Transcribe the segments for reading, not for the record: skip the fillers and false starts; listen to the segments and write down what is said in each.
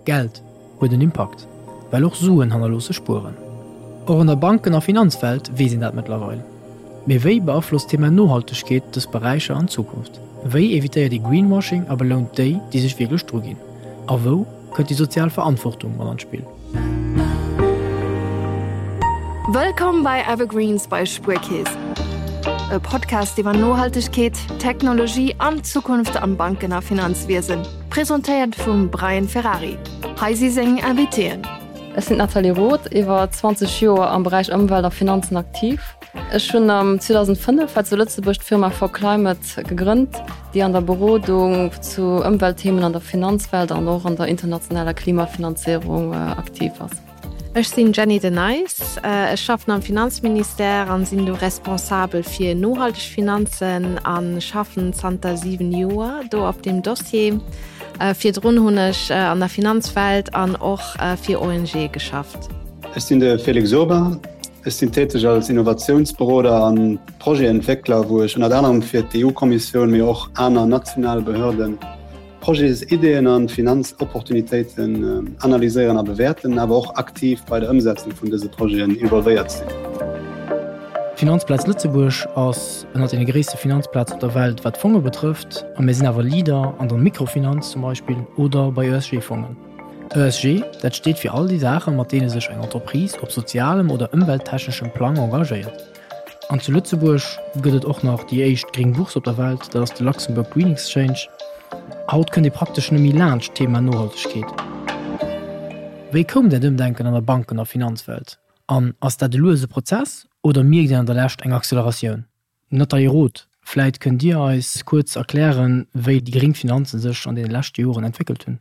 Geld huet en Impakt, well och Suen hannerloosse Spueren. Och an der Banken a Finanzwelt weess een dat mëttlerweil. Mee wéi beaflosst d'Thema Nohaltegkeet dës Beräicher an Zukunft? Wéi evitéiert ee Greenwashing a belount déi, déi sech wierklech druginn? A wou kënnt déi sozial Verantwortung mat an d'Spill? Wëllkomm bei Evergreens bei Spuerkeess, e Podcast iwwer Nohaltegkeet, Technologie an d'Zukunft am Banken a Finanzwiesen. Presentéiert vum Brian Ferrari. Hei si seng Invitéen. Ech sinn d'Nathalie Roth, iwwer 20 Joer am Beräich Ëmwelt a Finanzen aktiv. Ech hunn am 2005 hei zu Lëtzebuerg d'Firma For Climate gegrënnt, déi an der Berodung zu Ëmweltthemen an der Finanzwelt an och an der internationaler Klimafinanzéierung aktiv ass. Ech sinn d'Jenny De Nijs, ech schaffen am Finanzministère an sinn do responsabel fir nohalteg Finanzen a schaffen zanter 7 Joer do op deem Dossier. Virdrun hunn ech an der Finanzwelt an och fir ONGe geschafft. Ech sinn de Félix Urbain, ech sinn täteg als Innovatiounsberoder an Projetentwéckler, wou ech ënnert anerem fir d'EU-Kommissioun, mee och aner national Behörden Projetsideeën an Finanzopportunitéiten analyséieren a bewäerten, awer och aktiv bei der Ëmsetzung vun dëse Projeten involvéiert sinn. D'Finanzplaz Lëtzebuerg ass ënnert deene gréisste Finanzplazen op der Welt wat Fonge betrëfft, a mir sinn awer Leader an der Mikrofinanz zum Beispill oder bei ESG-Fongen. ESG, dat steet fir all déi Saache mat deene sech eng Entreprise op sozialem oder ëmwelttechneschem Plang engagéiert. An zu Lëtzebuerg gëtt et och nach déi éischt gréng Bourse op der Welt, dat ass de Luxembourg Green Exchange. Haut kënnt ee praktesch net méi laanscht d'Thema Nohaltegkeet. Wéi koum dat Ëmdenken an der Banken a Finanzwelt? An ass dat e luese Prozess oder mierkt een an der Lescht eng Acceleratioun? Nathalie Roth, vläit kënnt Dir eis kuerz erklären, wéi déi gréng Finanzen sech an deene leschte Joren entwéckelt hunn?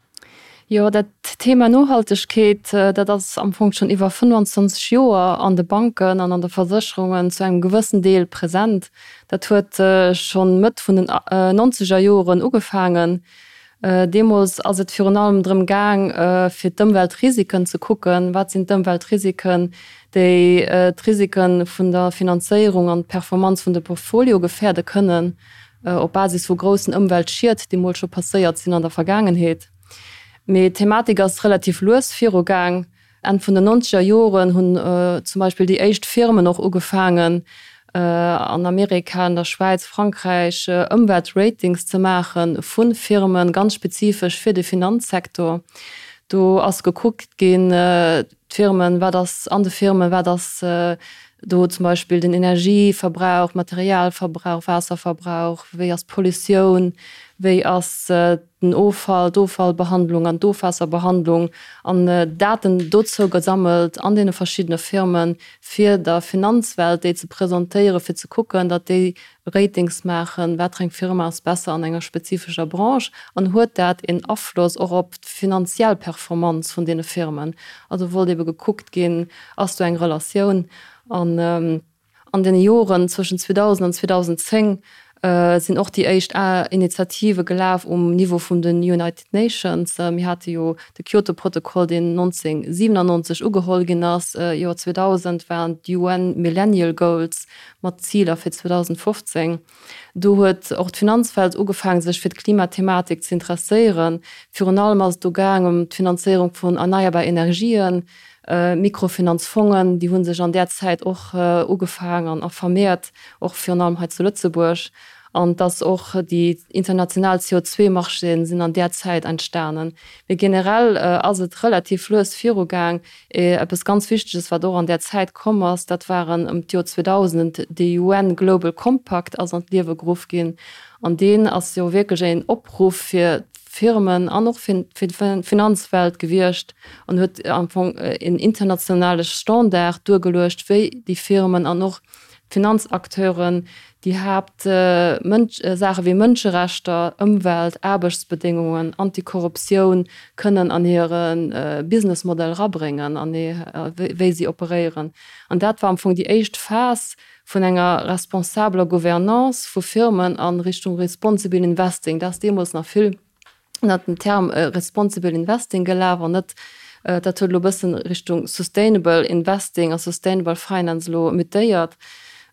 Jo, dat Thema Nohaltegkeet, dat ass am Fong schonn iwwer 25 Joer an de Banken an an de Versécherungen zu engem gewëssen Deel present. Dat huet schonn Mëtt vun den nonzeger Joren ugefaangen. Deemools ass et virun allem drëm gaang, fir d'Ëmweltrisiken ze kucken. Wat sinn d'Ëmweltrisiken, déi d'Risike vun der Finanzéierung an d'Performanz vun de Portfolio gefäerde kënnen? op Basis vu groussen Ëmweltschied, déi mol scho passéiert sinn an der Vergaangenheet. Mee d'Thematik ass relativ lues virugaang. Enn vun den nonzeger Joren hunn zum Beispill déi éischt Firmen och ugefaangen, an Amerika, an der Schwäiz, Frankräich, Ëmweltratings ze maache vu Firmen, ganz spezifesch fir de Finanzsektor. Do ass gekuckt ginn, D'Firmen, wat ass an de Firmen, wat ass do zum Beispill den Energieverbrauch, Materialverbrauch, Waasserverbrauch, wéi ass d'Pollutioun, wéi ass den Offall, d'Offallbehandlung an d'Ofwaasserbehandlung an Daten dozou gesammelt an deene verschiddene Firmen, fir der Finanzwelt déi ze presentéieren, fir ze kucken, datt déi Ratings maachen, wat fir eng Firma ass besser an enger spezifescher Branche an huet dat een Afloss och op d'finanziell Performanz vun deene Firmen. Also wollt ebe gekuckt ginn, ass do eng Relatioun. An an deene Joren zwëschen 2000 an 2010 sinn och déi éischt Initiative gelaf um Niveau vun den United Nations. Mir hate jo de Kyoto-Protokoll, deen 1997 ugeholl ginn ass. Joer 2000 waren d'UN Millennial Goals, mat Ziler fir 2015. Do huet och d'Finanzwelt ugefaangen, sech fir d'Klimathematik ze interesséieren. Virun allem ass et do gaang ëm d'Finanzéierung vun erneierbar Energien, Mikrofinanzfongen, déi hu sech an där Zäit och ugefaang an a vermehrt, och virun allem hei zu Lëtzebuerg. An dass och déi international CO2-Marchéen sinn an där Zäit entstanen. Mee generell ass et relativ lues virugaang. Eppes ganz Wichteges, wat och an där Zäit komm ass, dat waren ëm d'Joer 2000, de UN Global Compact ass an d'Liewe geruff ginn. An deen ass jo wierklech een Opruff fir d'Firmen an och fir d'Finanzwelt gewiescht an huet am Fong een internationale Standard duergeluecht, wéi déi Firmen an och d'Finanzacteuren déi Haapt Saache wéi Mënscherechter, Ëmwelt, Aarbechtsbedéngungen, Antikorruptioun kënnen an hire Businessmodell erabréngen an wéi si operéieren. An dat war am Fong déi éischt Phas vun enger responsabeler Gouvernance vu Firmen a Richtung Responsible Investing. Dat ass deemools nach vill ënnert dem Term Responsible Investing gelaf an net, dat huet elo e bëssen Richtung Sustainable Investing a Sustainable Finance elo mutéiert.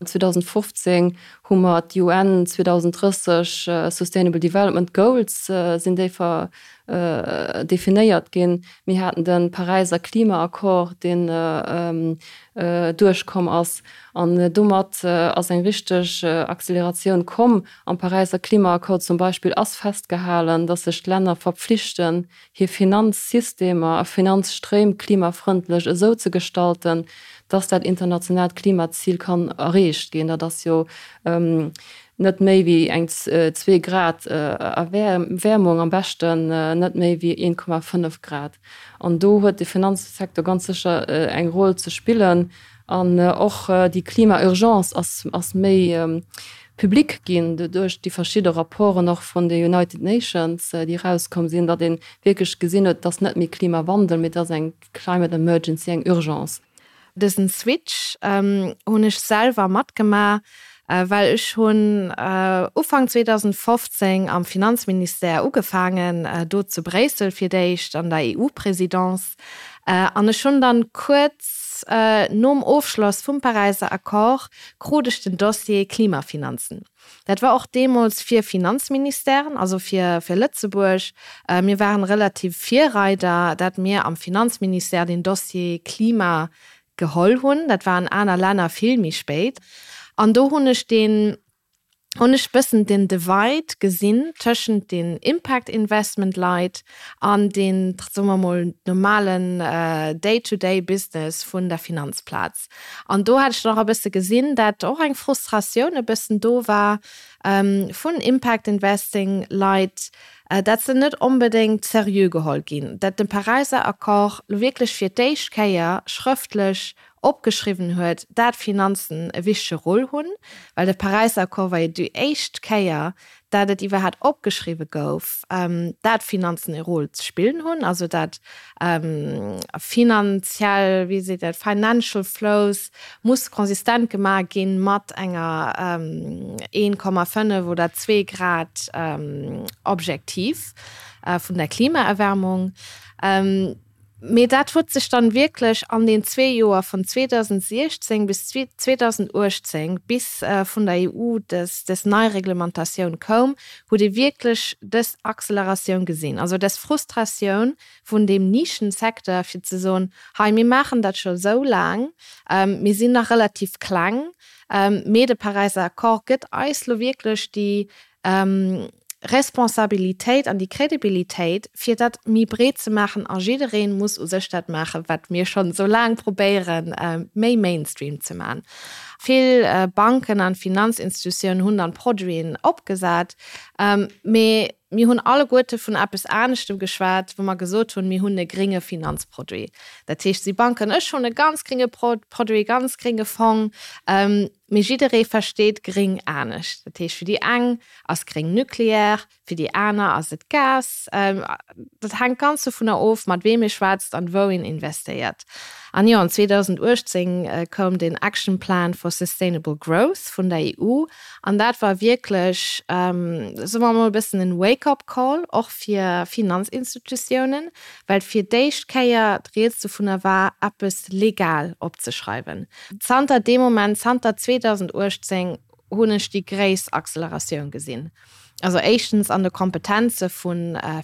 2015 hu mer d'UN 2030 Sustainable Development Goals sinn déi ver definéiert ginn. Mir haten de Paräiser Klimaaccord, deen duerchkomm ass. An domat ass eng richteg Acceleratioun komm. Am Paräiser Klimaaccord zum Beispill ass festgehalen, datt sech d'Länner verpflichten, hir Finanzsystemer a Finanzstréim klimafrëndlech esou ze gestalten, dass dat internationaalt Klimazil kann erreecht ginn. Dat ass jo net méi wéi eng zwee Grad Erwäermung, am beschten net méi wéi 1,5 Grad. An do huet de Finanzsecteur ganz sécher eng Roll ze spillen. An och déi Klima-Urgence ass méi public ginn duerch déi verschidde Rapporten och vun de United Nations, déi erauskomm sinn, datt ee wierklech gesinn huet, et ass net méi Klimawandel, mee et ass eng Climate Emergency, eng Urgence. Dësen Switch hunn ech selwer matgemaach, well ech hunn Ufank 2015 am Finanzministère ugefaangen, do zu Bréissel fir d'éischt an der EU-Présidence. An ech hunn dann kuerz nom Ofschloss vum Paräiser Accord krut ech den Dossier Klimafinanzen. Dat war och deemools fir Finanzministèren, also fir fir Lëtzebuerg. Mir waren relativ Virreider, dat mir am Finanzministère den Dossier Klima geholl hunn. Dat war an aner Länner vill méi spéit. An do hunn ech deen hunn ech bëssen den Divide gesinn tëschent den Impact Investment Leit an den, soe mer mol, normalen Day-to-day Business vun der Finanzplaz. An do hat ech dann och e bësse gesinn, dat och eng Frustratioun e bëssen do war vun Impact Investing Leit, dat se net onbedéngt seriö geholl ginn, dat de Paräiser Accord lo wierklech fir d'éischt Kéier schrëftlech opgeschriwwen huet, dat Finanzen e wichtege Rôle hunn, well de Paräisser Accord war jo déi éischt Kéier, dat et iwwerhat opgeschriwwe gouf, dat Finanzen e Rôle ze spillen hunn, also dat finanziell, wéi seet dat, financial flows muss konsistent gemaach gi mat enger 1,5 oder zwee Grad Objektiv vun der Klimaerwärmung. Mee dat huet sech dann wierklech an den zwee Joer vun 2016 bis 2018, bis vun der EU des des nei Reglementatioun koum, huet ee wierklech des Acceleratioun gesinn. Also des Frustratioun vun deem Nischensecteur fir ze soen, hei mir maachen dat scho sou laang, mir sinn nach relativ kleng, mee de Paräiser Accord gëtt eis lo wierklech déi Responsabilitéit an déi Crédibilitéit, fir dat méi breet ze maachen a jidderee muss u sech dat maachen, wat mir schonn esou laang probéieren, méi Mainstream ze maachen. Vill Banken an Finanzinstitutiounen hunn dann Produiten opgesat, mee mir hunn alleguerte vun eppes aneschtem geschwat, wou mer gesot hunn, mir hunn e grénge Finanzproduit. Dat heescht, si Banken, ech hunn e ganz grénge Produit, ganz grénge Fong, Mee jidderee versteet gréng anescht. Dat heescht, fir déi eng ass gréng Nucleaire, fir déi aner ass et Gas. Dat hänkt ganz dovunner of, mat weem ee schwätzt an wou een investéiert. An jo, an 2018 koum den Action Plan for Sustainable Growth vun der EU an dat war wierklech, soe mer emol, e bëssen en Wake-up-Call och fir Finanzinstitutiounen, well fir d'éischt Kéier d'Rieds dovunner war, eppes legal opzeschreiwen. Zanter deem Moment, zanter 2018, hunn ech déi gréisst Acceleratioun gesinn. Also éischtens an de Kompetenze vu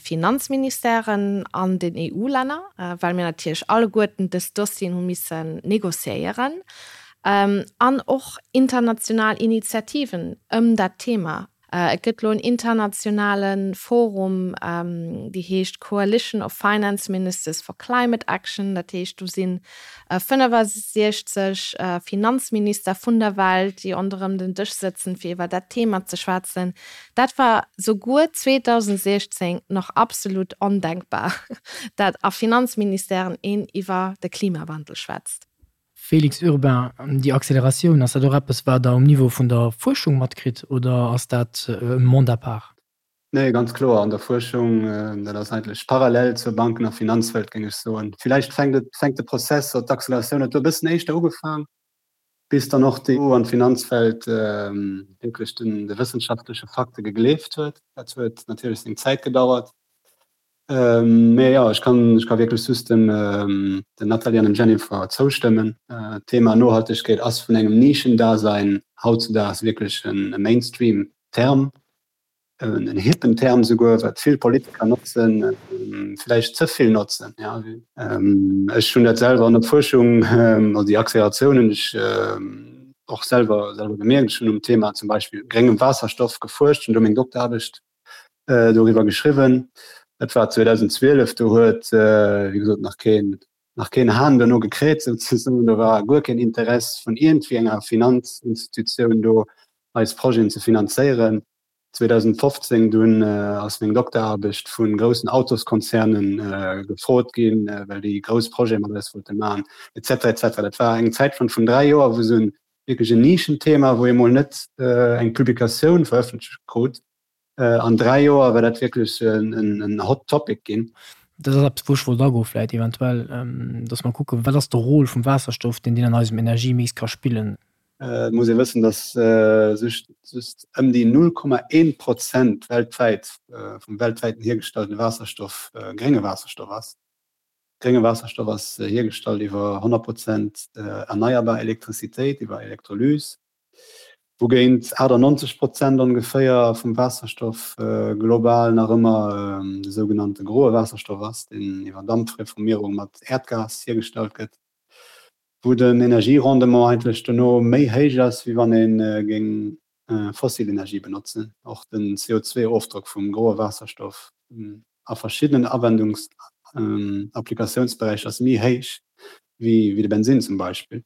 Finanzministèren an den EU-Länner, well mir natierlech alleguerten dës Dossieren hu missen négociéieren, an och international Initiativen ëm dat Thema. Et gëtt elo en internationale Forum, dee heescht Coalition of Finance Ministers for Climate Action. Dat heescht, do si 65 Finanzminister vun der Welt, déi ronderëm den Dësch sëtzen, fir iwwer dat Thema ze schwätzen. Dat war souguer 2016 nach absolut ondenkbar, dat a Finanzministèren een iwwer de Klimawandel schwätzt. Félix Urbain, Déi Acceleratioun, ass dat och eppes, wat Der um Niveau vun der Fuerschung matkritt oder ass dat e Monde à part? Nee, ganz kloer an der Fuerschung. Dat ass eigentlech parallel zur Banken a Finanzwelt, géing ech soen. Villäicht fänkt et, fänkt de Prozess oder d'Acceleratioun huet do e bëssen éischter ugefaang, bis dann och d'EU an d'Finanzwelt wierklech den, de wëssenschaftleche Fakte gegleeft huet. Dat huet natierlech seng Zäit gedauert. Mee jo, ech kann, ech ka wierklech just dem, der Nathalie an dem Jennifer zoustëmmen. D'Thema Nohaltegkeet ass vun engem Nischendasein hautzudaags wierklech e Mainstream-Term, en hippen Term souguer, wat vill Politiker notzen, vläicht ze vill notzen. Ech hunn dat selwer an der Fuerschung, also déi Acceleratioun hunn ech och selwer selwer gemierkt. Ech hunn um Thema zum Beispill gréngem Waasserstoff gefuerscht, hunn do meng Dokteraarbecht doriwwer geschriwwen. Dat war 2012, do huet wéi gesot nach keen nach keen Hahn dono gekräht souzesoen. Do war guer keen Interess vun iergendwéi enger Finanzinstitutioun do eis Projeten ze finanzéieren. 2015 dunn ass meng Dokteraarbecht vu groussen Autoskonzernen gefrot ginn, well déi grouss Projete mat eis wollte maachen, et cetera, et cetera. Dat war eng Zäit vun 3 Joer, wou esou wierklech en Nischenthema, wou ee mol net eng Publikatioun verëffentlecht krut. An 3 Joer war dat wierklech en hot topic ginn. Dat ass eppes, wou ech wollt agoen, vläicht eventuell, dass mer kucken, wat ass de Rôle vum Waasserstoff, deen deen an eisem Energiemix ka spillen. Et muss ee wëssen, dass just ëm déi 0,1 Prozent weltwäit vum weltwäiten hiergestallte Waasserstoff grénge Waasserstoff ass. Grénge Waasserstoff ass hiergestallt iwwer 100 Prozent erneierbar Elektrizitéit, iwwer Elektrolys, wougéint 98 Prozent ongeféier vum Waasserstoff global nach ëmmer de sougenannte groe Waasserstoff ass, deen iwwer Dampreformierung mat Äerdgas hiergestallt gëtt. Wou den Energierendement eigentlech dono méi héich ass, wéi wann ee géing fossil Energie benotzen. Och den CO2-Ofdrock vum groe Waasserstoff a verschiddenen Awendungs Applikatiounsberäicher ass méi héich wéi de Bensinn zum Beispill.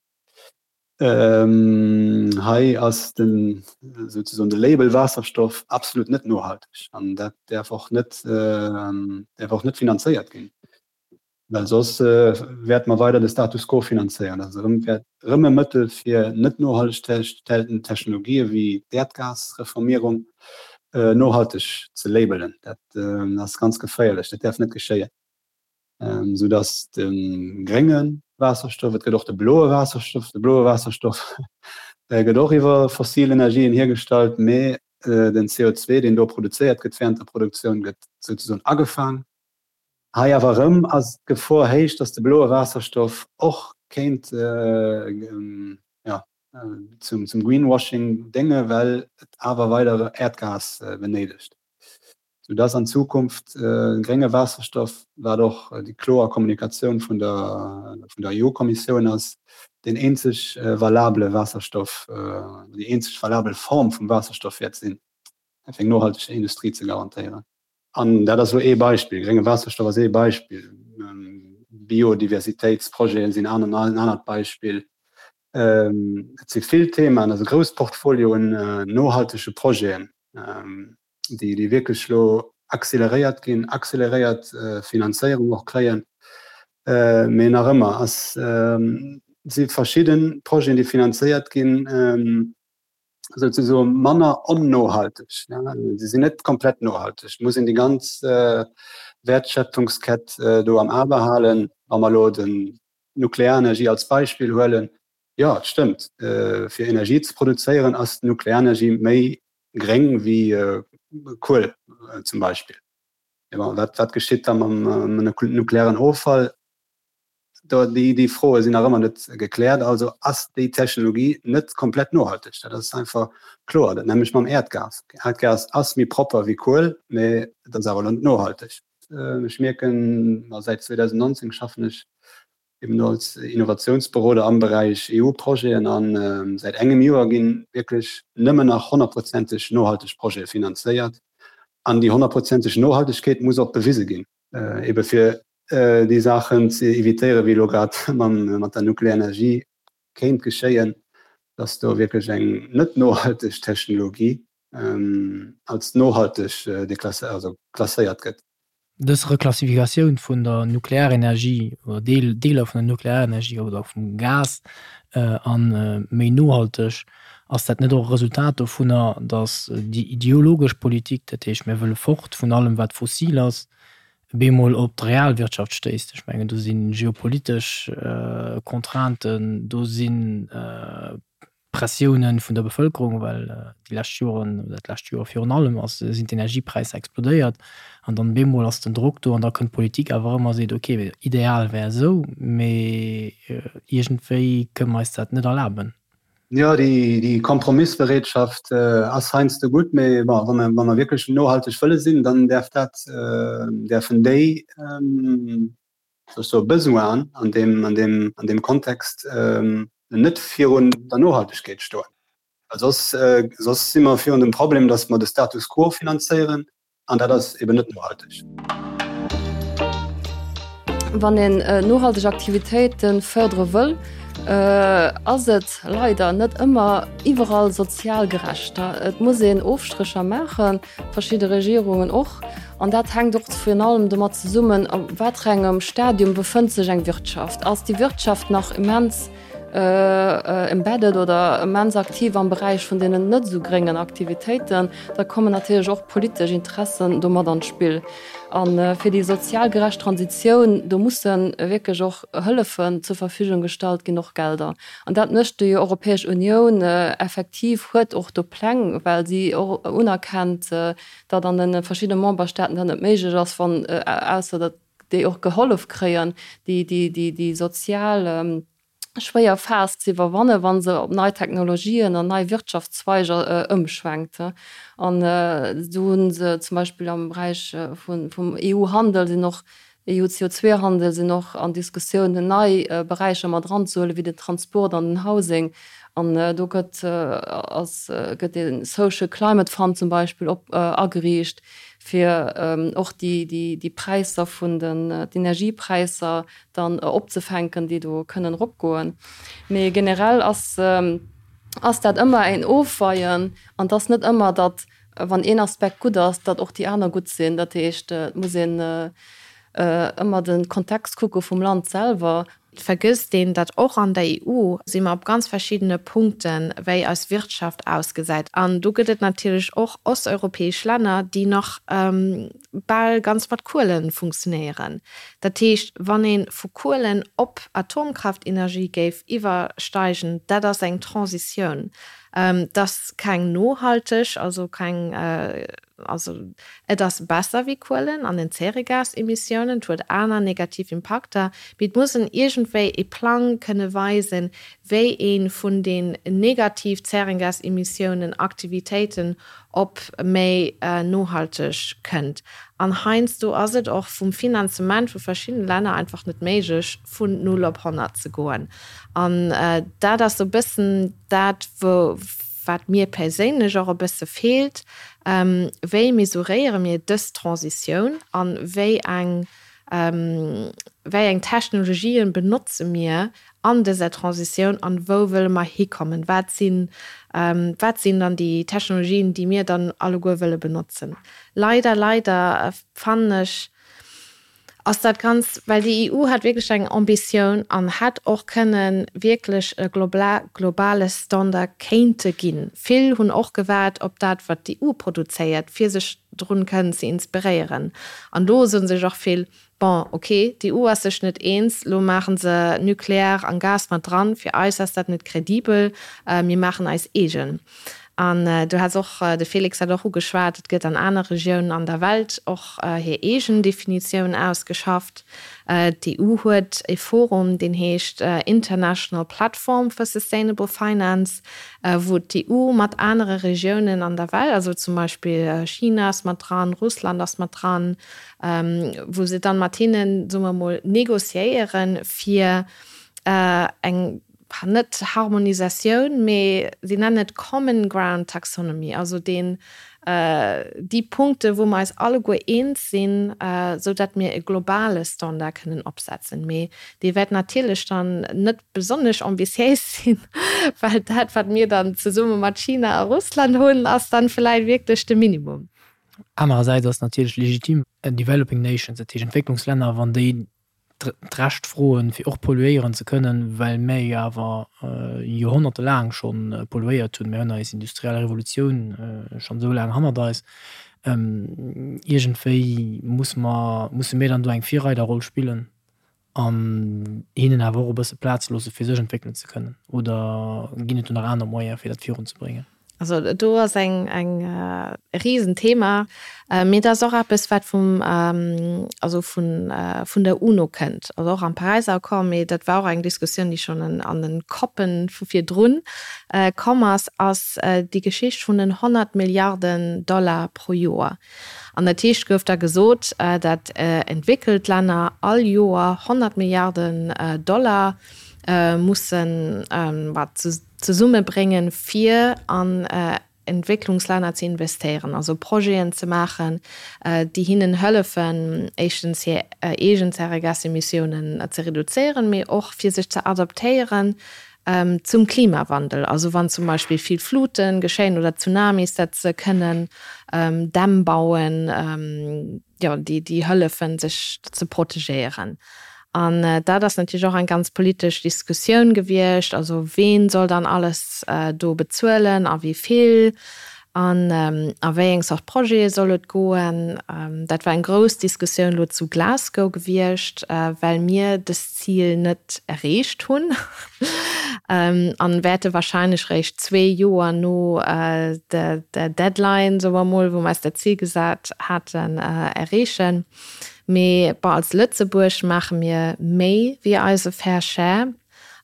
Hei ass den souzesoen de Label Waasserstoff absolut net nohalteg an dat däerf och net däerf och net finanzéiert ginn. Well soss wäerte mer weider de Status quo finanzéieren. Dat ass erëm, wäert erëm e Mëttel fir net nohalteg hergestellten Technologië wéi d'Äerdgasreformierung nohalteg ze labelen. Dat ass ganz geféierlech, dat däerf net geschéien. Soudass de grénge Waasserstoff, et gëtt och de bloe Waasserstoff, de bloe Waasserstoff gëtt och iwwer fossil Energien hiergestallt, mee den CO2, deen do produzéiert gëtt während der Produktioun, gëtt souzesoen agefaang. Hei awer erëm ass d'Gefor héich, datt de bloe Waasserstoff och kéint zum Greenwashing dénge well et awer weider Äerdgas benéidegt, sou datt an Zukunft grénge Waasserstoff, wat och déi kloer Kommunikatioun vun der EU-Kommissioun ass, deen eenzeg valabele Waasserstoff, déi eenzeg valabel Form vum Waasserstoff wäert sinn, fir eng nohalteg Industrie ze garantéieren. An dat ass elo ee Beispill. Grénge Waasserstoff ass ee Beispill. Biodiversitéitsprojete sinn en anert Beispill. Et si vill Themaen, et ass e grousst Portfolio un nohaltege Projeten, déi wierklech elo acceleréiert ginn, acceleréiert Finanzéierung och kréien. Mee nach ëmmer ass, si verschidde Projeten, déi finanzéiert ginn, souzesoe manner onnohalteg. Se sinn net komplett nohalteg. Et muss een déi ganz Wäertschöpfungskett do am A behalen. Wa mer elo den Nuklearenergie als Beispill huelen, jo, et stëmmt, fir Energie ze produzéieren ass d'Nuklearenergie méi gréng wéi Kuel zum Beispill. Mee bon, wat geschitt da mam nuklearen Offall? Déi Froe sinn nach ëmmer net gekläert. Also ass déi Technologie net komplett nohalteg. Dat ass einfach kloer. Dat nämmlecht mam Äerdgas. Äerdgas ass méi propper wéi Kuel, mee et ass awer elo net nohalteg. Ech mierken, ma säit 2019 schaffen ech eben do als Innovatiounsberoder am Beräich EU-Projeten a säit engem Joer gi wierklech nëmmen nach honnertprozenteg nohalteg Projete finanzéiert. An déi honnertprozenteg Nohaltegkeet muss och bewise ginn. Ebe fir déi Saachen ze evitéieren, wéi elo grad mat der Nuklearenergie kéint geschéien, dass do wierklech eng net nohalteg Technologie als nohalteg klasséiert gëtt. Dës Reklassifikatioun vun der Nuklearenergie oder Deeler vun der Nuklearenergie oder vum Gas a méi nohalteg, ass dat net och e Resultat dovunner, datt déi ideologesch Politik, dat heescht mir wëlle fort vun allem wat fossil ass, bemol op d'Realwirtschaft stéisst? Ech mengen do si geopolitesch Contrainten, do si Pressiounen vun der Bevëlkerung, well déi lescht Joren, oder dat lescht Joer virun allem, ass, sinn d'Energiepräisser explodéiert. An dann bemol ass den Drock do an da kënnt d'Politik awer erëm a seet, ok, ideal wär esou, mee iergendwéi kënne mer eis dat net erlaben. Jo, déi Kompromissbereetschaft ass heiansdo gutt, mee bon, wa mer, wa mer wierklech nohalteg wëlle sinn, dann däerf dat, däerfen déi, soll ech soen, Besoinen an deem, an deem, an deem Kontext net virun der Nohaltegkeet stoen. Well soss, soss si mer virun dem Problem, datt mer de Status quo finanzéieren An dat ass eben net nohalteg. Wann een nohalteg Aktivitéite fërdere wëll, ass et leider net ëmmer iwwerall sozial gerecht. Et muss een Ofstrécher maachen, verschidde Regierungen och. An dat hänkt och virun allem domat zesummen, a wat fir engem Stadium befënnt sech eng Wirtschaft. Ass déi Wirtschaft nach immens embedded oder immens aktiv am Beräich vun deenen net esou gréngen Aktivitéiten, da kommen natierlech och politesch Interessen do mat an d'Spill. A fir déi sozial gerecht Transitioun, do musse wierklech och Hëllefen zur Verfügung gestallt ginn, och Gelder. An dat mécht déi Europäesch Unioun effektiv, huet och do Pläng, well si och unerkennt, datt an de verschiddene Memberstaaten dat net méiglech ass, wann, ausser datt déi och gehollef kréien, déi sozial schwéier Phas ze iwwerwannen, wa se op nei Technologien an nei Wirtschaftszweiger ëmschwenkt. An do hu se zum Beispill am Beräich vum EU-Handel sinn och, EU-CO2-Handel sinn och an Diskussiounen, nei Beräicher mat eranzehuelen, wéi den Transport an den Housing. An do gëtt, ass, gëtt ee Social Climate Fund zum Beispill op ageriicht, fir och déi Präisser vun den d'Energiepräisser dann opzefänken, déi do kënnen eropgoen. Mee generell ass ass dat ëmmer een Ofweien an et ass net ëmmer, datt wann een Aspekt gutt ass, datt och déi aner gutt sinn. Dat heescht, et muss een ëmmer de Kontext kucke vum Land selwer. Et vergësst een, datt och an der EU si mer op ganz verschiddene Punkten, wéi eis Wirtschaft ausgesäit. An do gëtt et natierlech och osteuropäesch Länner, déi nach bal ganz mat Kuele funktionéieren. Dat heescht, wann ee vu Kuelen op Atomkraftenergie géif iwwersteigen, dat ass eng Transitioun. Dat ass keng nohalteg, also keng Also et ass besser wéi Kuelen an den Zäregasemissiounen, et huet aner negativ Impakter, mee et muss en iergendwéi e Plang kënne weisen, wéi ee vun den negativ Zärengasemissiounen, Aktivitéiten op méi nohalteg kënnt. An heiansdo ass et och vum Finanzement vu verschiddene Länner einfach net méiglech, vun null op 100 ze goen. An dat ass esou e bëssen dat, wou. Wat mir perséinlech och e bësse feelt, Wéi mesuréiere mir dës Transitioun a wéi eng, wéi eng Technologien benotze mir an dëser Transitioun an wou wëlle mer hikommen? Wat sinn, wat sinn dann déi Technologien, déi mir dann alleguer wëlle benotzen? Leider, leider fannen ech, ass dat ganz, well déi EU hat wierklech eng Ambitioun an hätt och kënnen wierklech e globale Standard kéinte ginn. Vill hunn och gewaart op dat, wat d'EU produzéiert, fir sech drun kënnen ze inspiréieren. An do soe sech och vill, Bon, ok, d'EU ass sech net eens, lo maache se Nucléaire an Gas mat dran, fir eis ass dat net kredibel, mir maachen eis eegen. An du has och, de Félix hat och ugeschwat, et gëtt an aner Regiounen an der Welt och hir eegen Definitioun ausgeschafft. D'EU huet e Forum, deen heescht International Platform for Sustainable Finance, wou d'EU mat anere Regiounen an der Welt, also zum Beispill China ass mat dran, Russland ass mat dran, wou se dann mat hinnen, soe mer emol, négociéieren, fir eng net Harmonisatioun, mee si nennen et Common Ground Taxonomy, also deen, déi Punkte wou mer eis alleguer eens sinn, esou datt mir e globale Standard kënnen opsetzen. Mee dee wäert natierlech dann net besonnesch ambitiéis sinn, well dat wat mir dann zesumme mat China a Russland hunn, ass dann vläicht wierklech de Minimum. Anerersäits ass natierlech legitim, Developing Nations, dat heescht Entwécklungslänner, wann déi d'Recht froen, fir och polluéieren ze kënnen, well mär jo awer joerhonnertelaang scho polluéiert hunn. Mir hunn eis industriell Revolutioun schonn esou laang hannert eis. Iergendwéi muss mer, musse mir dann do eng Virreiderroll spillen an hinnen awer och e bësse Plaz loosse fir sech entwéckelen ze kënnen. Oder ginn et do nach aner Moyene fir dat virunzebréngen? Also do ass eng eng e Risenthema, mee dat ass och eppes wat vum also vun vun der UNO kënnt, also och am Paräiser Accord, mee dat war och eng Diskussioun déi schonn an den COPen vu virdrun komm ass, ass déi Geschicht vun den 100 Milliarden Dollar pro Joer. An dat heescht gouf da gesot, dat entwéckelt Länner all Joer 100 Milliarden Dollar mussen wat zesummebréngen, fir an Entwécklungslänner ze investéieren, also Projeten ze maachen, déi hinnen hëllefen, éischtens hir eegen Zäregasemissiounen ze reduzéieren, mee och fir sech ze adaptéieren zum Klimawandel. Also wann zum Beispill vill Flute geschéien oder Tsunamis, dat se kënnen Dämm bauen, jo, déi, déi hëllefen, sech ze protegéieren. An dat ass natierlech och eng ganz politesch Diskussioun gewiescht, also ween soll dann alles do bezuelen a wéi vill an a wéi eng Zort Projete soll et goen. Dat war eng grouss Diskussioun elo zu Glasgow gewiescht, well mir dës Zil net erreecht hunn an wäerte wahrscheinlech réischt zwee Joer no der Deadline, soe mer mol, wou mer eis dat Zil gesat haten, erreechen. Mee bon, als Lëtzebuerg maache mir méi wéi eise Fair Share.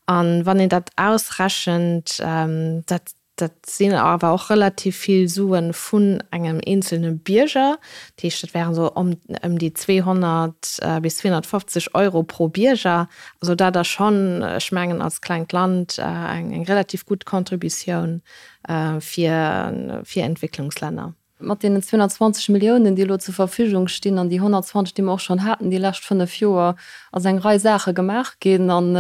An wann een dat ausrechent, dat Dat sinn awer och relativ vill Sue vun engem eenzelne Bierger. Dat heescht, dat wären esou ëm déi 200 bis 250 Euro pro Bierger. Also dat ass schonn, ech mengen, als klengt Land eng relativ gutt Contributioun fir Entwécklungslänner. Mat deenen 220 Milliounen, déi elo zur Verfügung stinn, an déi 120, déi mer och schonn haten déi lescht fënnf Joer, ass eng Rei Saache gemaach ginn an,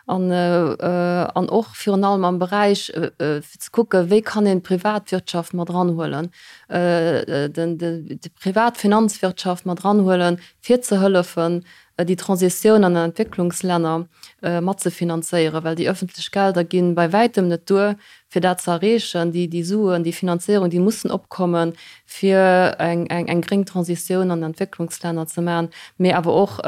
an, an och virun allem am Beräich fir ze kucken, wéi kann een d'Privatwirtschaft mat eranhuelen, den, déi privat Finanzwirtschaft mat eranhuelen, fir ze hëllefen, déi Transitioun an den Entwécklungslänner matzefinanzéieren, well déi öffentlech Gelder gi bei wäitem net duer, fir dat ze erreechen. Déi, déi Suen, déi Finanzéierung, déi mussen opkommen, fir eng, eng, eng gréng Transitioun an den Entwécklungslänner ze maachen, mee awer och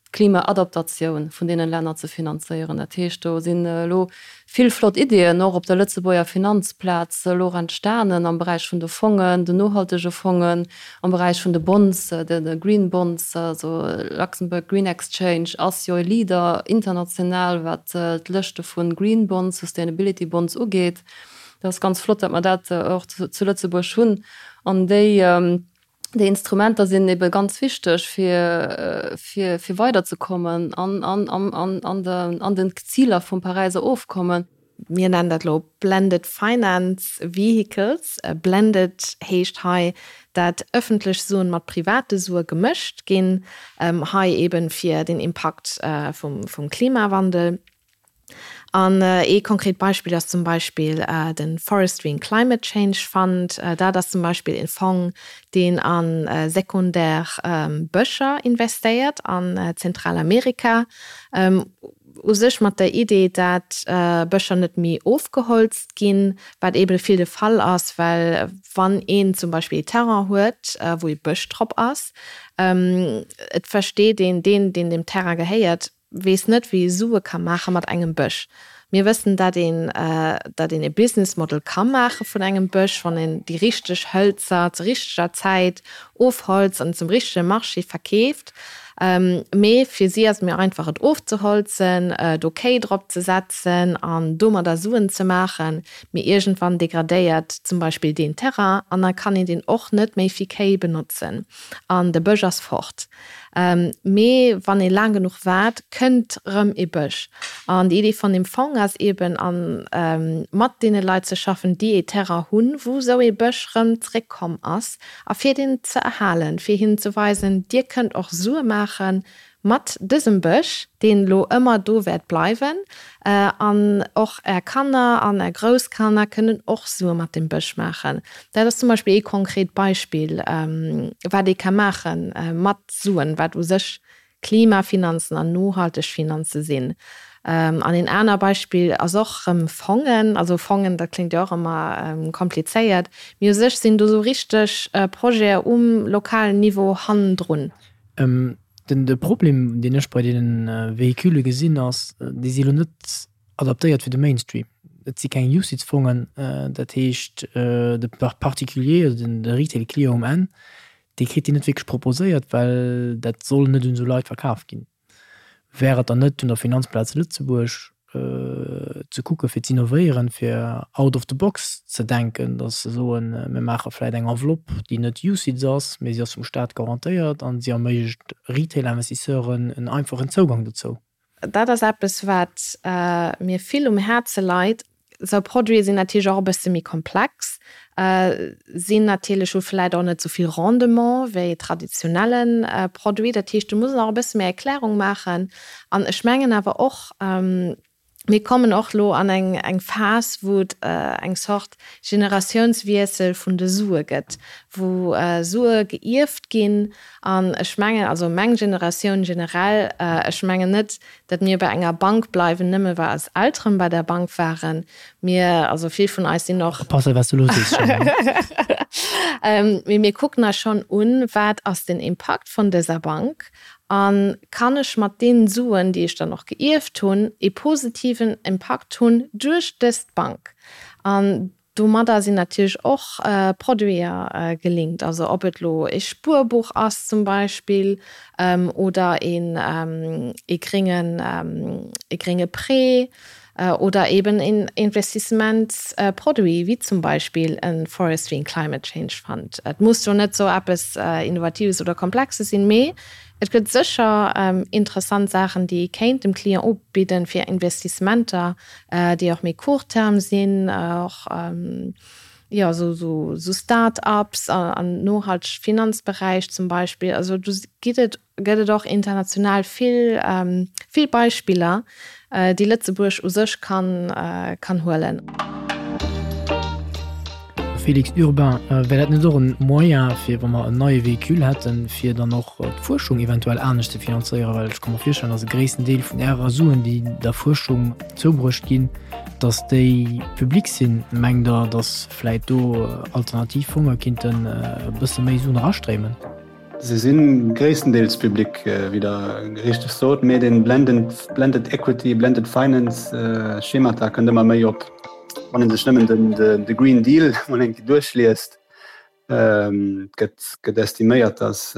d'Klimaadaptatioun vun deenen Länner ze finanzéieren. Dat heescht, do sinn elo vill flott Ideeën och op der Lëtzebuerger Finanzplaz elo och entstanen am Beräich vun de Fongen, den nohaltege Fongen, am Beräich vun de Bonds, de Green Bonds, also Luxembourg Green Exchange ass jo e Leader international, wat d'Lëschte vu Green Bonds, Sustainability Bonds ugeet. Dat ass ganz flott, datt mer dat och zu Lëtzebuerg hunn. An déi Déi Instrumenter sinn ebe ganz wichteg, fir, fir, fir weiderzekommen an, an, an, an de, an den Ziler vum Paräiser Ofkommen. Mir nennen dat elo Blended Finance Vehicles. Blended heescht hei, dat ëffentlech Suen mat private Sue gemëscht ginn, hei eben fir den Impakt vum, vum Klimawandel. An ee konkret Beispill ass zum Beispill de Forestry and Climate Change Fund. Dat ass zum Beispill e Fong, deen a sekundär Bëscher investéiert an Zentralamerika, u sech mat der Idee, dat Bëscher net méi ofgeholzt ginn, wat eebe vill de Fall ass, well wann een zum Beispill ee Terrain huet, wou ee Bësch drop ass, et versteet een, deen, deen deem Terrain gehéiert, weess net wéi ee Sue ka maache mat engem Bësch. Mir wëssen dat een dat een e Business Model ka maache vun engem Bësch, wann een déi richteg Hëlzer zur richteger Zäit ofholzt an zum richtege Marché verkeeft. Mee fir si ass et méi einfach et ofzeholzen, do Kéi drop ze setzen an domadder Suen ze maachen. Mee iergendwann degradéiert zum Beispill deen Terrain an da kann een deen och net méi fir Kéi benotzen an de Bësch ass fort. Mee wann ee laang genuch waart, kënnt rëm ee Bësch. An déi Idee vun deem Fong ass eeben, a mat deene Leit ze schaffen, déi ee Terrain hunn, wou esou ee Bësch rëm zréckkomm ass, a fir deen ze erhalen, fir hinnen ze weisen, Dir kënnt och Sue maache mat dësem Bësch, deen elo ëmmer do wäert bleiwen, an och Är Kanner an Är Grousskanner kënnen och Sue mat deem Bësch maachen. Dat ass zum Beispill ee konkret Beispill, wat ee ka maache mat Suen, wat u sech Klimafinanzen an nohalteg Finanze sinn. An een aner Beispill ass och erëm Fongen. Also Fongen, dat kléngt jo och ëmmer komplizéiert, mee u sech sinn do sou richteg Projete um lokalen Niveau hannendrun. Den de Problem, deen ech bei deene Véhicule gesinn, ass, déi si elo net adaptéiert fir de Mainstream. Et si keng UCITS-Fongen, dat heescht de Particulier, also de Retail-Client um Enn, dee kritt déi net wierklech proposéiert, well dat soll net un esou Leit verkaf ginn. Wär et dann net un der Finanzplaz Lëtzebuerg ze kucke fir z'innovéieren, fir out of the box ze denken, datt se soen, mir maache vläicht eng Enveloppe, déi net UCITS ass, mee si ass vum Staat garantéiert an si erméiglecht Retail-Investisseuren en einfachen Zougang dozou? Dat ass eppes, wat mir vill um Häerze leit. Esou Produite sinn natierlech och e bësse méi komplex, sinn natierlech, hu vläicht och net esou vill Rendement wéi traditionelle Produit. Dat heescht, do muss een och e bësse méi Erklärung maachen. An ech mengen awer och, mir kommen och elo an eng eng Phas, wou et eng Zort Generatiounswiessel vun de Sue gëtt, wou Sue geierft ginn. An ech mengen, also meng Generatioun generell, ech mengen net, datt mir bei enger Bank bleiwen, nëmme well eis Elteren bei der Bank waren. Mir, also vill vun eis sinn och. Oppassen, wat s du elo sees, Jeanne. Mee mir kucken eis schonn un, wat ass den Impakt vun dëser Bank a kann ech mat deenen Suen, déi ech dann och geierft hunn, ee positiven Impakt hunn duerch dëst Bank. An Domadder sinn natierlech och Produiter gelinkt, also ob et elo ee Spuerbuch ass zum Beispill oder een ee gréngen ee grénge Prêt oder eben een Investissementsproduit wéi zum Beispill e Forestry and Climate Change Fund. Et muss jo net esou eppes Innovatives oder Komplexes sinn, mee et gëtt sécher interessant Saachen, déi ee kéint dem Client ubidden, fir Investissementer déi och méi court terme sinn, och jo esou esou Start-ups an nohalteg Finanzberäich zum Beispill. Also do gitt et gëtt et och international vill vill Beispiller, déi Lëtzebuerg u sech kann kann huelen. Félix Urbain, Wär dat net och en Moyen, fir wa mer en neie Véhicule hätten, fir dann och d'Fuerschung eventuell anescht ze finanzéieren? Well ech ka mer virstellen, datt e gréissten Deel vun Ärer Suen, déi der Fuerschung zoubruecht ginn, datt déi public sinn. Mengt Der, datt vläit do alternativ Fonge kinnten e bësse méi Suen erastréimen? Se si gréisstendeels public, wéi Der richteg sot, mee de Blended Equity, Blended Finance Schemata kënnt ëmmer méi op. Wann ee sech nëmmen de Green Deal mol eng Kéier duerchliest, gëtt gëtt estiméiert, datt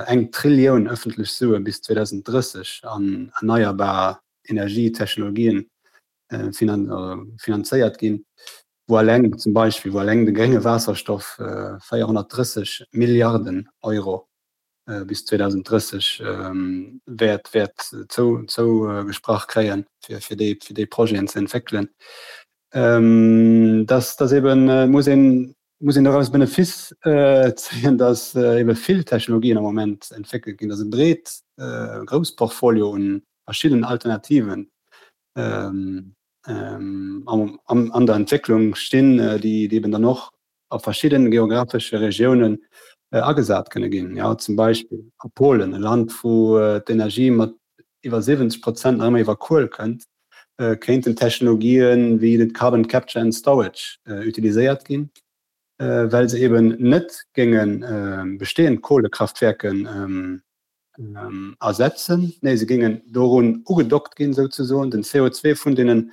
eng Trillioun ëffentlech Sue bis 2030 an erneierbar Energietechnologien finanzéiert ginn. wou alleng zum Beispill, wou alleng de grénge Waasserstoff 430 Milliarden Euro bis 2030 wäert wäert zou zougesprach kréien, fir fir déi fir déi Projeten ze entwéckelen. Dass dass eben muss een muss een doraus Benefiss zéien, dass ebe vill Technologien am Moment entwéckelt ginn, dass e breet grouss Portfolio un verschiddenen Alternativen an der Entwécklung stinn, déi eben dann och a verschidde geografesche Regiounen agesat kënne ginn. Jo, zum Beispill a Polen, e Land, wou d'Energie mat iwwer 70 Prozent nach ëmmer iwwer Kuel kënnt, kéinten Technologië wéi de Carbon Capture and Storage utiliséiert ginn, well se eben net géinge bestehend Kohlekraftwerke ersetzen, nee se géingen dorun ugedockt ginn souzesoen, den CO2 vun deene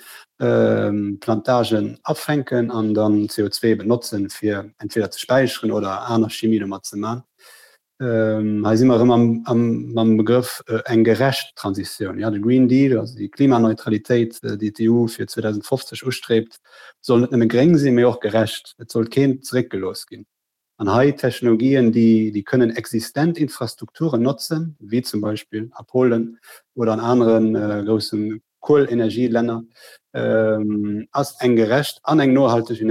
Plantagen afänken an dann CO2 benotzen, fir entweder ze späicheren oder aner Chimie domat ze man. Hei si mer erëm mam Begrëff eng gerecht Transitioun. Jo, de Green Deal, also déi Klimaneutralitéit, déi d'EU fir 2050 ustreebt, soll net nëmme gréng sinn, mee och gerecht. Et soll keen zeréckgelooss ginn. An hei Technologien, déi kënnen existent Infrastrukturen notzen, wéi zum Beispill a Polen oder an anere grousse Kuelenergielänner, ass eng gerecht an eng nohalteg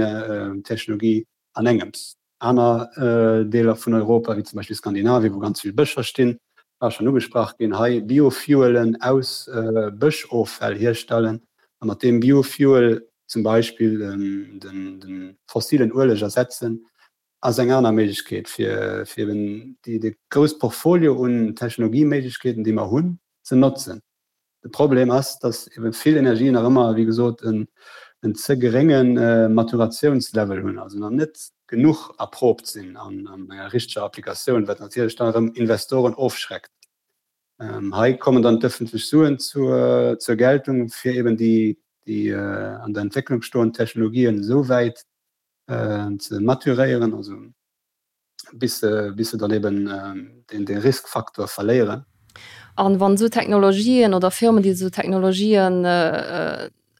Technologie an engems. Aner Deeler vun Europa, wéi zum Beispill Skandinavien, wou ganz vill Bëscher stinn, war schonn ugesprach ginn, hei Biofuelen aus Bëschoffäll hierstellen a mat deem Biofuel zum Beispill de fossilen Ueleg ersetzen, ass eng aner Méiglechkeet, fir eben déi de grouss Portfolio un Technologieméiglechkeeten, déi mer hunn, ze notzen. De Problem ass, dass ebe vill Energien nach ëmmer, wéi gesot, en ze gerénge Maturatiounslevel hunn, also nach net genuch erprobt sinn an enger richteger Applikatioun, wat natierlech dann erëm Investoren ofschreckt. Hei kommen dann d'ëffentlech Suen zur Geltung, fir eben déi. déi an der Entwécklung stoend Technologien esou wäit ze maturéieren, also bis se bis se dann eben deen dee Riskfaktor verléieren. An wann esou Technologien oder Firmen, déi esou Technologien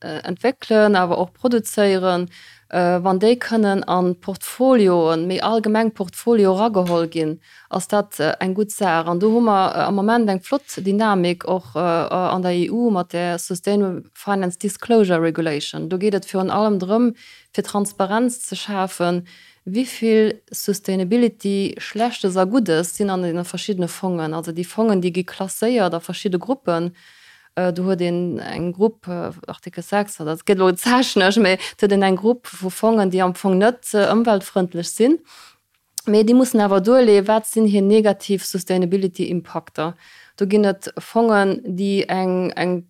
entwéckelen, awer och produzéieren, wann déi kënnen an d'Portfolioen, méi allgemeng Portfolio erageholl ginn, ass dat eng gutt Saach. An do hu mer am Moment eng flott Dynamik och an der EU mat där Sustainable Finance Disclosure Regulation. Do geet et virun allem drëm, fir Transparenz ze schafen, wéi vill Sustainability, Schlechtes a Guddes, sinn an deene verschiddene Fongen. Also déi Fongen, déi gi klasséiert a verschidde Gruppen. Do huet een eng Grupp, Artikel 6, dat gëtt elo technesch, mä et huet een eng Grupp vu Fongen, déi am Fong net ëmweltfrëndlech sinn, mä déi mussen awer duerleeën, wat sinn hir negativ Sustainability-Impakter. Do ginn et Fongen, déi eng, eng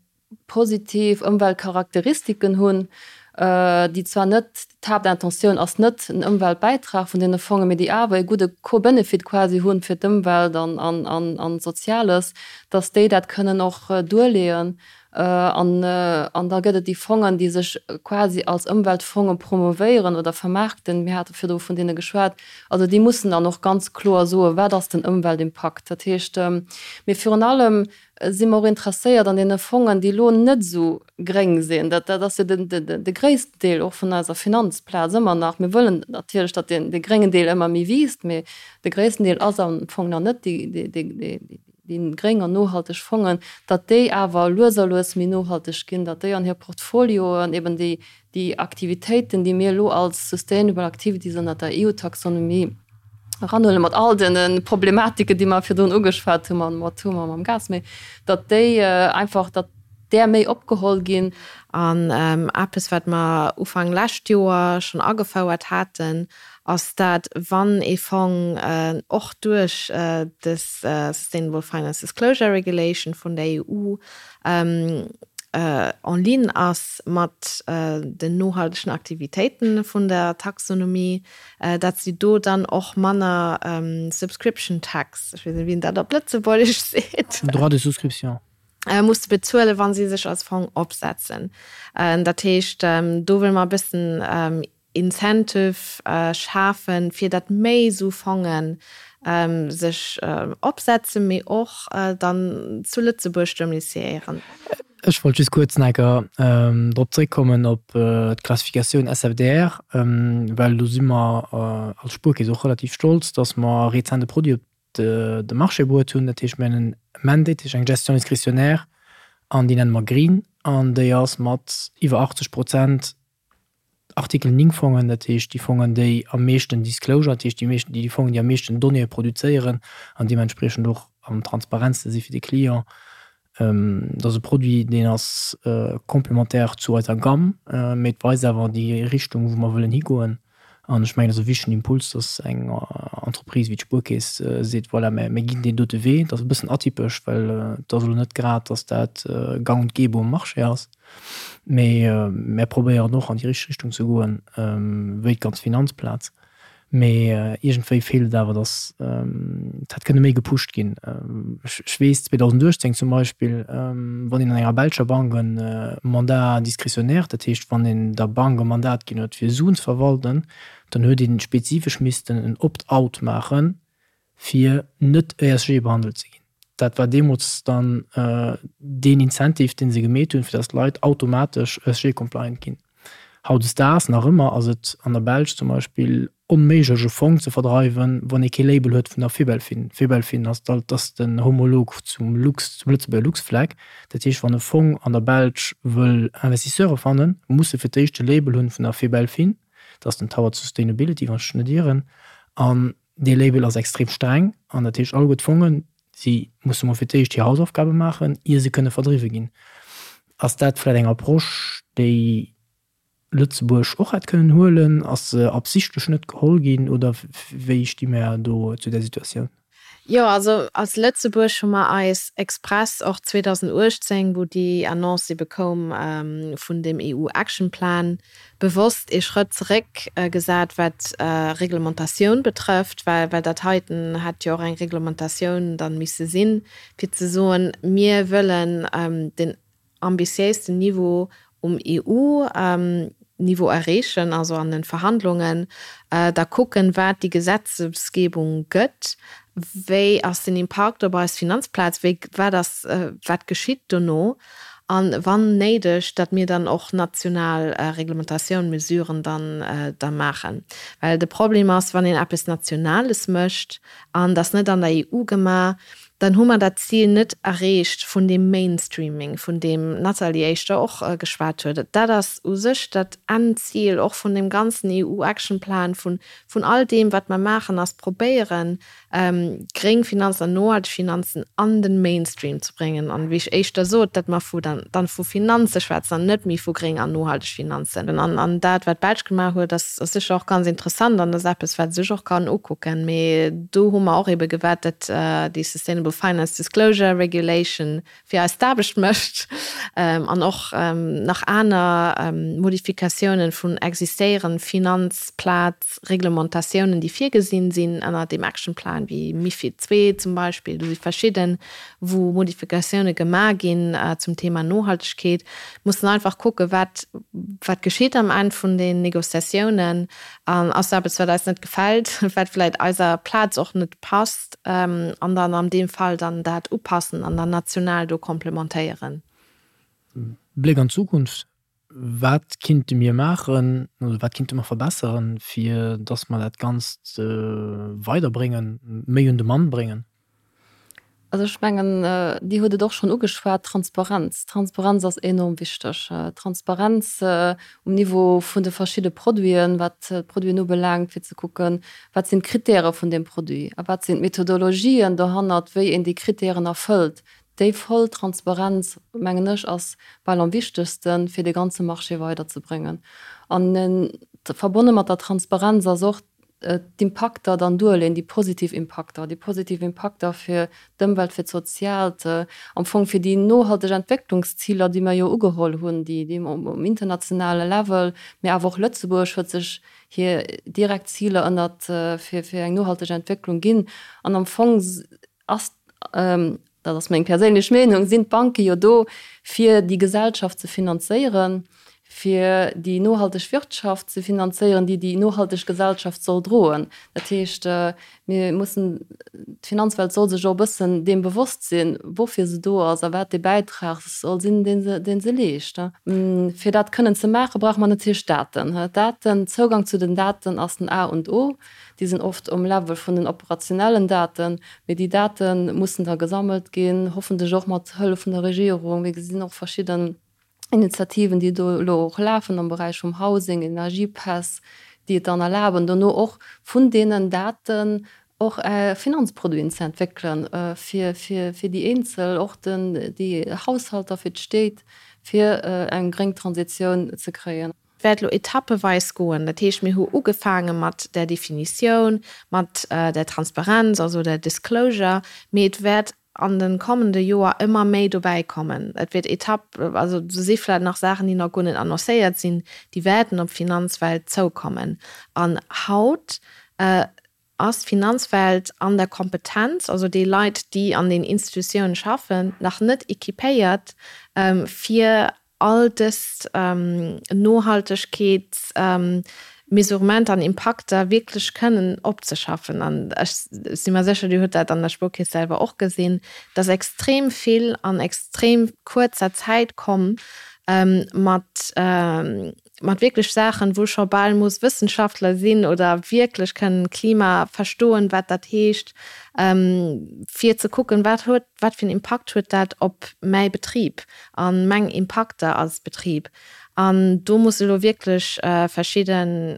positiv Ëmweltcharakteristiken hunn, déi zwar net, d'Haaptintentioun ass net en Ëmweltbäitrag vun deene Fongen, mee déi awer e gudde Co-Benefit quasi hunn fir d'Ëmwelt an d'Soziales, dass déi dat kënnen och duerleeën. An da gëtt et déi Fongen, déi sech quasi als Ëmweltfonge promovéieren oder vermaarkten, mir hate virdru vun deene geschwat, also déi mussen dann och ganz kloer soen, wat ass den Ëmweltimpakt. Dat heescht, mee virun allem si mer och interesséiert an deene Fongen, déi elo net esou gréng sinn. Dat ass jo de gréissten Deel och vun eiser Finanzplaz ëmmer nach. Mir wëllen natierlech, datt dee gréngen Deel ëmmer méi wiisst, mee de gréissten Deel ass am Fong nach net déi gréng an nohalteg Fongen, datt déi awer lues a lues méi nohalteg ginn, datt déi an hir Portfolioen eben déi Déi Aktivitéiten, déi mir elo als Sustainable Activities ënnert der EU-Taxonomie eranhuelen, mat all de Problematiken, déi mer virdrun ugeschwat hu mam Atom a mam Gas, mee datt déi einfach, datt där méi opgeholl ginn. An eppes, wat mer Ufank lescht Joer schonn agefouert haten, ass dat, wann ee Fong och duerch dës Sustainable Finance Disclosure Regulation vun der EU en ligne ass mat den nohaltegen Aktivitéiten vun der Taxonomie, dat si do dann och manner Subscription Tax, ech weess net, wéi een dat op Lëtzebuergesch seet. Droit de souscription. Musse bezuelen, wa si sech als Fong opsetzen. Dat heescht, do wëlle mer e bëssen Incentive schafen, fir datt méi esou Fonge sech opsetzen, mee och dann zu Lëtzebuerg domiciéieren. Ech wollt just kuerz nach eng Kéier drop zréckkommen op d'Klassifikatioun SFDR, well do si mer als Spuerkeess och relativ stolz, datt mer rezent e Produit op de Marché bruet hunn. Dat heescht, mir hunn en Mandate, dat heescht eng Gestion discrétionnaire, an déi nenne mer Green, an déi ass mat iwwer 80 Prozent Artikel 9 Fongen, dat heescht déi Fongen, déi am meeschten Disclosure, dat heescht déi meeschten, déi Fongen, déi am meeschten Donnéeë produzéieren an deementspriechend och am transparentste si fir de Client. Dat ass e Produit, deen ass complémentaire zu eiser Gamme, mee et weist awer déi Richtung, wou mer wëllen higoen. An ech mengen, et ass e wichtegen Impuls, dass eng Entreprise wéi d'Spuerkeess seet, voilà, mir ginn deen dote Wee. Dat ass e bëssen atypesch, well et ass elo net grad, dass dat gang und gäbe um Marché ass. Mee mär probéieren och an déi richteg Richtung ze goen, wéi d'ganz Finanzplaz. Mee iergendwéi feelt et awer, datt et hätt kënne méi gepusht ginn. Ech weess 2018 zum Beispill, wann een an enger belscher Bank e Mandat discrétionnaire, dat heescht wann een der Bank e Mandat ginn huet fir Suen ze verwalten, dann huet ee spezifesch missten en Opt-out maachen, fir net ESG behandelt ze ginn. Dat war deemools dann deen Incentive, dee se gemeet hunn, fir datt d'Leit automatesch ESG-compliant ginn. Hautdesdaags nach ëmmer ass et an der Belsch zum Beispill onméiglech e Fong ze verdreiwen, wann ee kee Label huet vun der Febelfin. Febelfin ass ass den Homolog zum Lux, zum Lëtzebuerger Luxflag. Dat heescht, wann e Fong an der Belsch wëll Investisseure fannen, muss e fir d'éischt e Label hunn vun der Febelfin, dat ass den Towards Sustainability, wann ech mech net ieren. An Dee Label ass extrem streng an dat heescht alleguer d'Fongen, si musse mol fir d'éischt hir Hausaufgabe maachen, ier se kënne verdriwwe ginn. Ass dat vläicht eng Approche, déi Lëtzebuerg och hätt kënnen huelen? Ass se absichtlech net geholl ginn oder wéi sti mär do zu där Situatioun? Jo, also als Lëtzebuerg hu mer eis express och 2018, wou déi Annonce ebe koum vun dem EU-Action Plan, bewosst ee Schrëtt zeréck gesat, wat Reglementatioun betrëfft, well well dat heiten hätt jo och eng Reglementatioun dann misse sinn, fir ze soen, mir wëllen den ambitiéisten Niveau. um EU-Niveau erreechen, also an de Verhandlungen, da kucken, wat déi Gesetzesgebung gëtt, wéi ass den Impakt op eis Finanzplaz, wéi, wat ass, wat geschitt dono, a wann néideg, datt mir dann och national Reglementatioun, Mesuren dann da maachen. Well de Problem ass, wann een eppes Nationales mécht an dat ass net an der EU gemaach, dann hu mer dat Zil net erreecht vun deem Mainstreaming, vun deem d'Nathalie éischter och geschwat huet. Dat ass u sech dat Endzil och vun deem ganzen EU-Action-Plan, vun all deem, wat mer maachen, ass probéieren, gréng Finanzen an nohalteg Finanzen an de Mainstream ze bréngen. An, wéi ech éischter sot, datt mer vu dann vu Finanze schwätzen an net méi vu gréng an nohalteg Finanzen. An dat, wat d'Belsch gemaach huet, ass sécher och ganz interessant an ass eppes, wat ee sech och kann ukucken. Mee do hu mer och eebe gewaart, datt déi Sustainable Finance Disclosure Regulation fir eis d'Aarbecht mécht an och nach aner Modifikatiounen vun existéierend Finanzplazreglementatiounen, déi virgesinn sinn ënner deem Actionplan, wéi MiFID ii zum Beispill. Do si verschidden, wou Modifikatiounen gemaach ginn zum Thema Nohaltegkeet. Mussen einfach kucken, wat wat geschitt am Enn vun den Négociatiounen. An ass eppes, wat eis net gefält, wat vläicht eiser Plaz och net passt, an dann an deem Fall dann dat upassen an dann national do complementéieren. Bléck an d'Zukunft, Wat kinnte mir maachen oder wat kinnte mer verbesseren, fir dass mer dat Ganzt weiderbréngen, méi un de Mann bréngen? Also ech mengen, Dir hutt et och schonn ugeschwat, Transparenz. Transparenz ass enorm wichteg. Transparenz um Niveau vun de verschidde Produiten, wat d'Produiten ubelaangt, fir ze kucken, wat sinn d'Kritäre vun deem Produit a wat sinn d'Methodologien dohannert, wéi een déi Kritären erfëllt. Déi voll Transparenz, mengen ech, ass bal am wichtegsten, fir de ganze Marché weiderzebréngen. An verbonne mat der Transparenz ass och d'Impakter dann duerleen, déi positiv Impakter, déi positiv Impakter fir d'Ëmwelt, fir d'Soziaalt, am Fong fir déi nohalteg Entwécklungsziler, déi mer jo ugeholl hunn, déi déi um internationale Level, mee awer och Lëtzebuerg huet sech hir direkt Ziler ënnert fir fir eng nohalteg Entwécklung ginn. An am Fong ass, dat ass meng perséinlech Meenung, sinn d'Banke jo do, fir déi Gesellschaft ze finanzéieren, fir déi nohalteg Wirtschaft ze finanzéieren, déi déi nohalteg Gesellschaft soll droen. Dat heescht, mir mussen, d'Finanzwelt soll sech och e bëssen deem bewosst sinn, woufir se do ass a wat dee Bäitrag soll sinn, dee se, dee se leescht. Fir dat kënnen ze maachen, brauche mer natierlech Daten. Daten, Zougang zu den Daten ass den A und O. Déi sinn oft um Level vun den operationellen Daten, mee déi Date mussen da gesammelt ginn, hoffentlech och mat Hëllef vun der Regierung. Mir gesinn och verschidden Initiativen, déi do elo och lafen am Beräich vum Housing, Energiepäss, déi et dann erlaben, dono och vun deenen Daten och Finanzproduiten ze entwéckelen, fir déi Eenzel, och déi Haushalter, fir d'Stéit, fir eng gréng Transitioun ze kréien. Wäert elo etappeweis goen. Dat heescht, mir hu ugefaange mat där Definitioun, mat der Transparenz, also der Disclosure, mee et wäert an de kommende Joer ëmmer méi dobäi kommen. Et wäert Etapp, also do si vläicht nach Saachen, déi nach guer net annoncéiert sinn, déi wäerten op d'Finanzwelt zoukommen. An haut ass d'Finanzwelt an der Kompetenz, also déi Leit, déi an den Institutiounen schaffen, nach net équipéiert, fir all dës Nohaltegkeetsmesurementer an Impakter wierklech kënnen opzeschaffen. An ech si mer sécher, Dir hutt dat an der Spuerkeess selwer och gesinn, dass extrem vill an extrem kuerzer Zäit komm mat mat wierklech Saachen, wou scho bal muss Wëssenschaftler sinn oder wierklech kënnen Klima verstoen, wat dat heescht, fir ze kucken, wat huet, wat fir en Impakt huet dat op mäi Betrib a meng Impakter als Betrib. An do musse elo wierklech verschidden,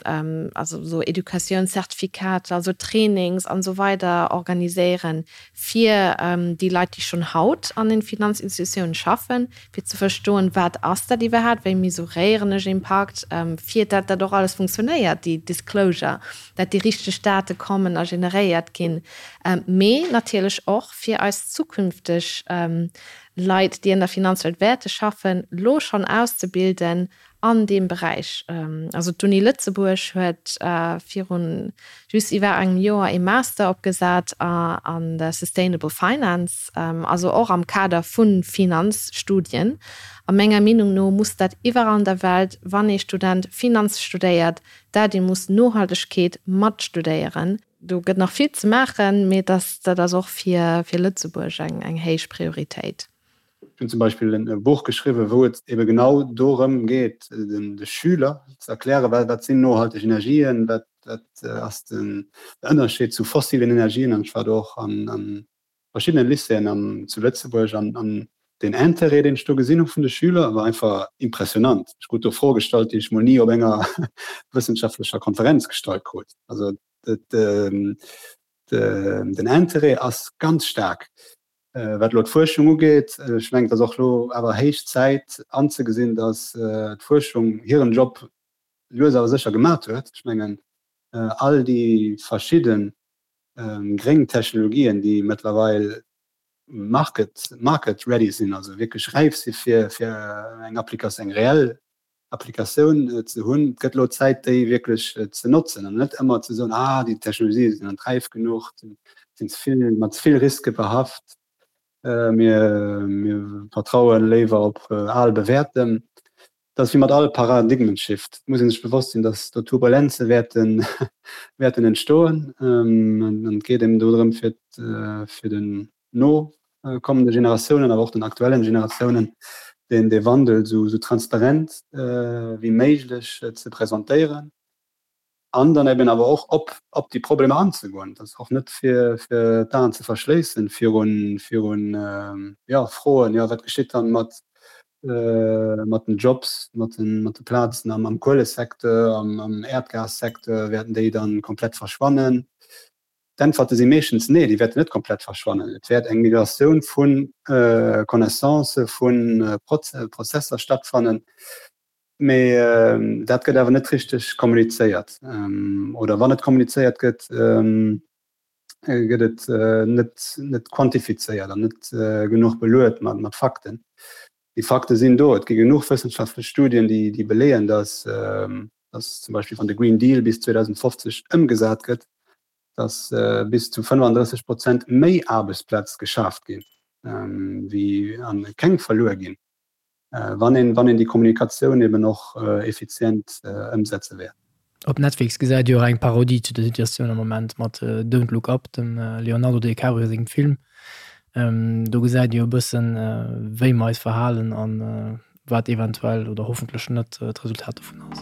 also esou Educatiounszertifikater, also Trainings an esou weider organiséieren, fir déi Leit, déi schonn haut an den Finanzinstitutiounen schaffen, fir ze verstoen, wat ass dat iwwerhaapt, wéi mesuréieren ech Impakt, fir dat dat och alles funktionéiert, déi Disclosure, dat déi richteg Date kommen a generéiert ginn, mee natierlech och fir eis zukünfteg Leit, déi an der Finanzwelt wäerte schaffen, lo schonn auszebilden. an deem Beräich. Also d'Uni Lëtzebuerg huet virun just iwwer engem Joer ee Master opgesat an der Sustainable Finance, also och am Kader vu Finanzstudien. A menger Meenung no muss dat iwwerall an der Welt, wann ee Student Finanz studéiert, dat ee muss Nohaltegkeet mat studéieren. Do gëtt nach vill ze maachen, mee dat ass och fir Lëtzebuerg eng héich Prioritéit. Ech hunn zum Beispill e Buch geschriwwen, wou et ebe genau dorëm geet, de Schüler ze erklären, wat sinn nohalteg Energien, wat ass den Ënnerscheed zu fossilen Energien. An ech war do och an verschiddene Lycéeën zu Lëtzebuerg an den Intérêt, deen ech do gesinn hu vun de Schüler, war einfach impressionant. Ech krut do Froe gestallt, déi ech mol ni op enger wëssenschaftlecher Konferenz gestallt krut. Also den Intérêt ass ganz staark. Wat elo d'Fuerschung ugeet, ech mengen, et ass och elo awer héich Zäit anzegesinn, datt d'Fuerschung hiren Job lues awer sécher gemat huet. Ech mengen, all déi verschidde gréng Technologien, déi mëttlerweil market, market ready sinn, also wierklech räif si fir, fir eng Applikatioun, eng reell Applikatioun ze hunn. Et gëtt elo Zäit, déi wierklech ze notzen an net ëmmer ze soen, ah, déi Technologië sinn net räif genuch, sinn ze vill, mat ze vill Riske behaft, mir, mir vertraue léiwer op al Bewäertem. Dat ass wéi mat all Paradigmenshift, et muss ee sech bewosst sinn, datt do Turbulenze wäerten, wäerten entstoen. An et geet eben do drëm, fir, fir den no kommende Generatiounen, awer och den aktuellen Generatiounen, deen dee Wandel esou transparent wéi méiglech ze presentéieren an dann eben awer och op op déi Problemer anzegoen. Dat ass och net fir fir d'Aen ze verschléissen virun virun jo Froen, jo wat geschitt dann mat mat den Jobs, mat den mat de Plazen am am Kuelesecteur, am am Äerdgassecteur, wäerten déi dann komplett verschwannen? D'Äntwerte si meeschtens nee, déi wäerten net komplett verschwannen. Et wäert eng Migratioun vu Connaissancë, vu Prozesser stattfannen, mee dat gëtt awer net richteg kommunizéiert. Oder wann et kommunizéiert gëtt, gëtt et net quantifizéiert an net genuch beluet mat Fakten. Déi Fakte sinn do. Et gi genuch wëssenschaftlech Studien, déi beleeën, datt zum Beispill wann de Green Deal bis 2050 ëmgesat gëtt, datt bis zu 35 Prozent méi Aarbechtsplaz geschaaft ginn, wéi a keng verluer ginn, wann een wann een déi Kommunikatioun eben och effizient ëmsetze wäert. Op Netflix gesäit Dir och eng Parodie zu der Situatioun am Moment mat Don't Look Up, dem Leonardo DiCaprio sengem Film. Do gesäit Dir e bëssen, wéi mer eis verhalen an wat eventuell oder hoffentlech net d'Resultat dovun ass.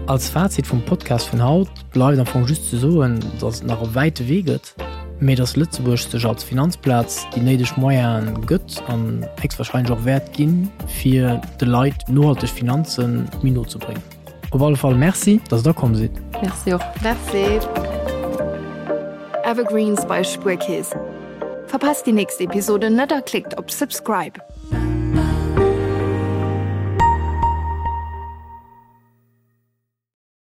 Als Fazit vum Podcast vun haut bleift am Fong just ze soen, datt et nach e wäite Wee gëtt, mee datt Lëtzebuerg sech als Finanzplaz déi néideg Moyene gëtt an héchstwahrscheinlech och wäert ginn, fir de Leit nohalteg Finanze méi no ze bréngen. Op alle Fall Merci, datt Der komm sidd. Merci och. Merci. Evergreens bei Spuerkeess. Verpasst déi nächst Episode net a klickt op Subscribe.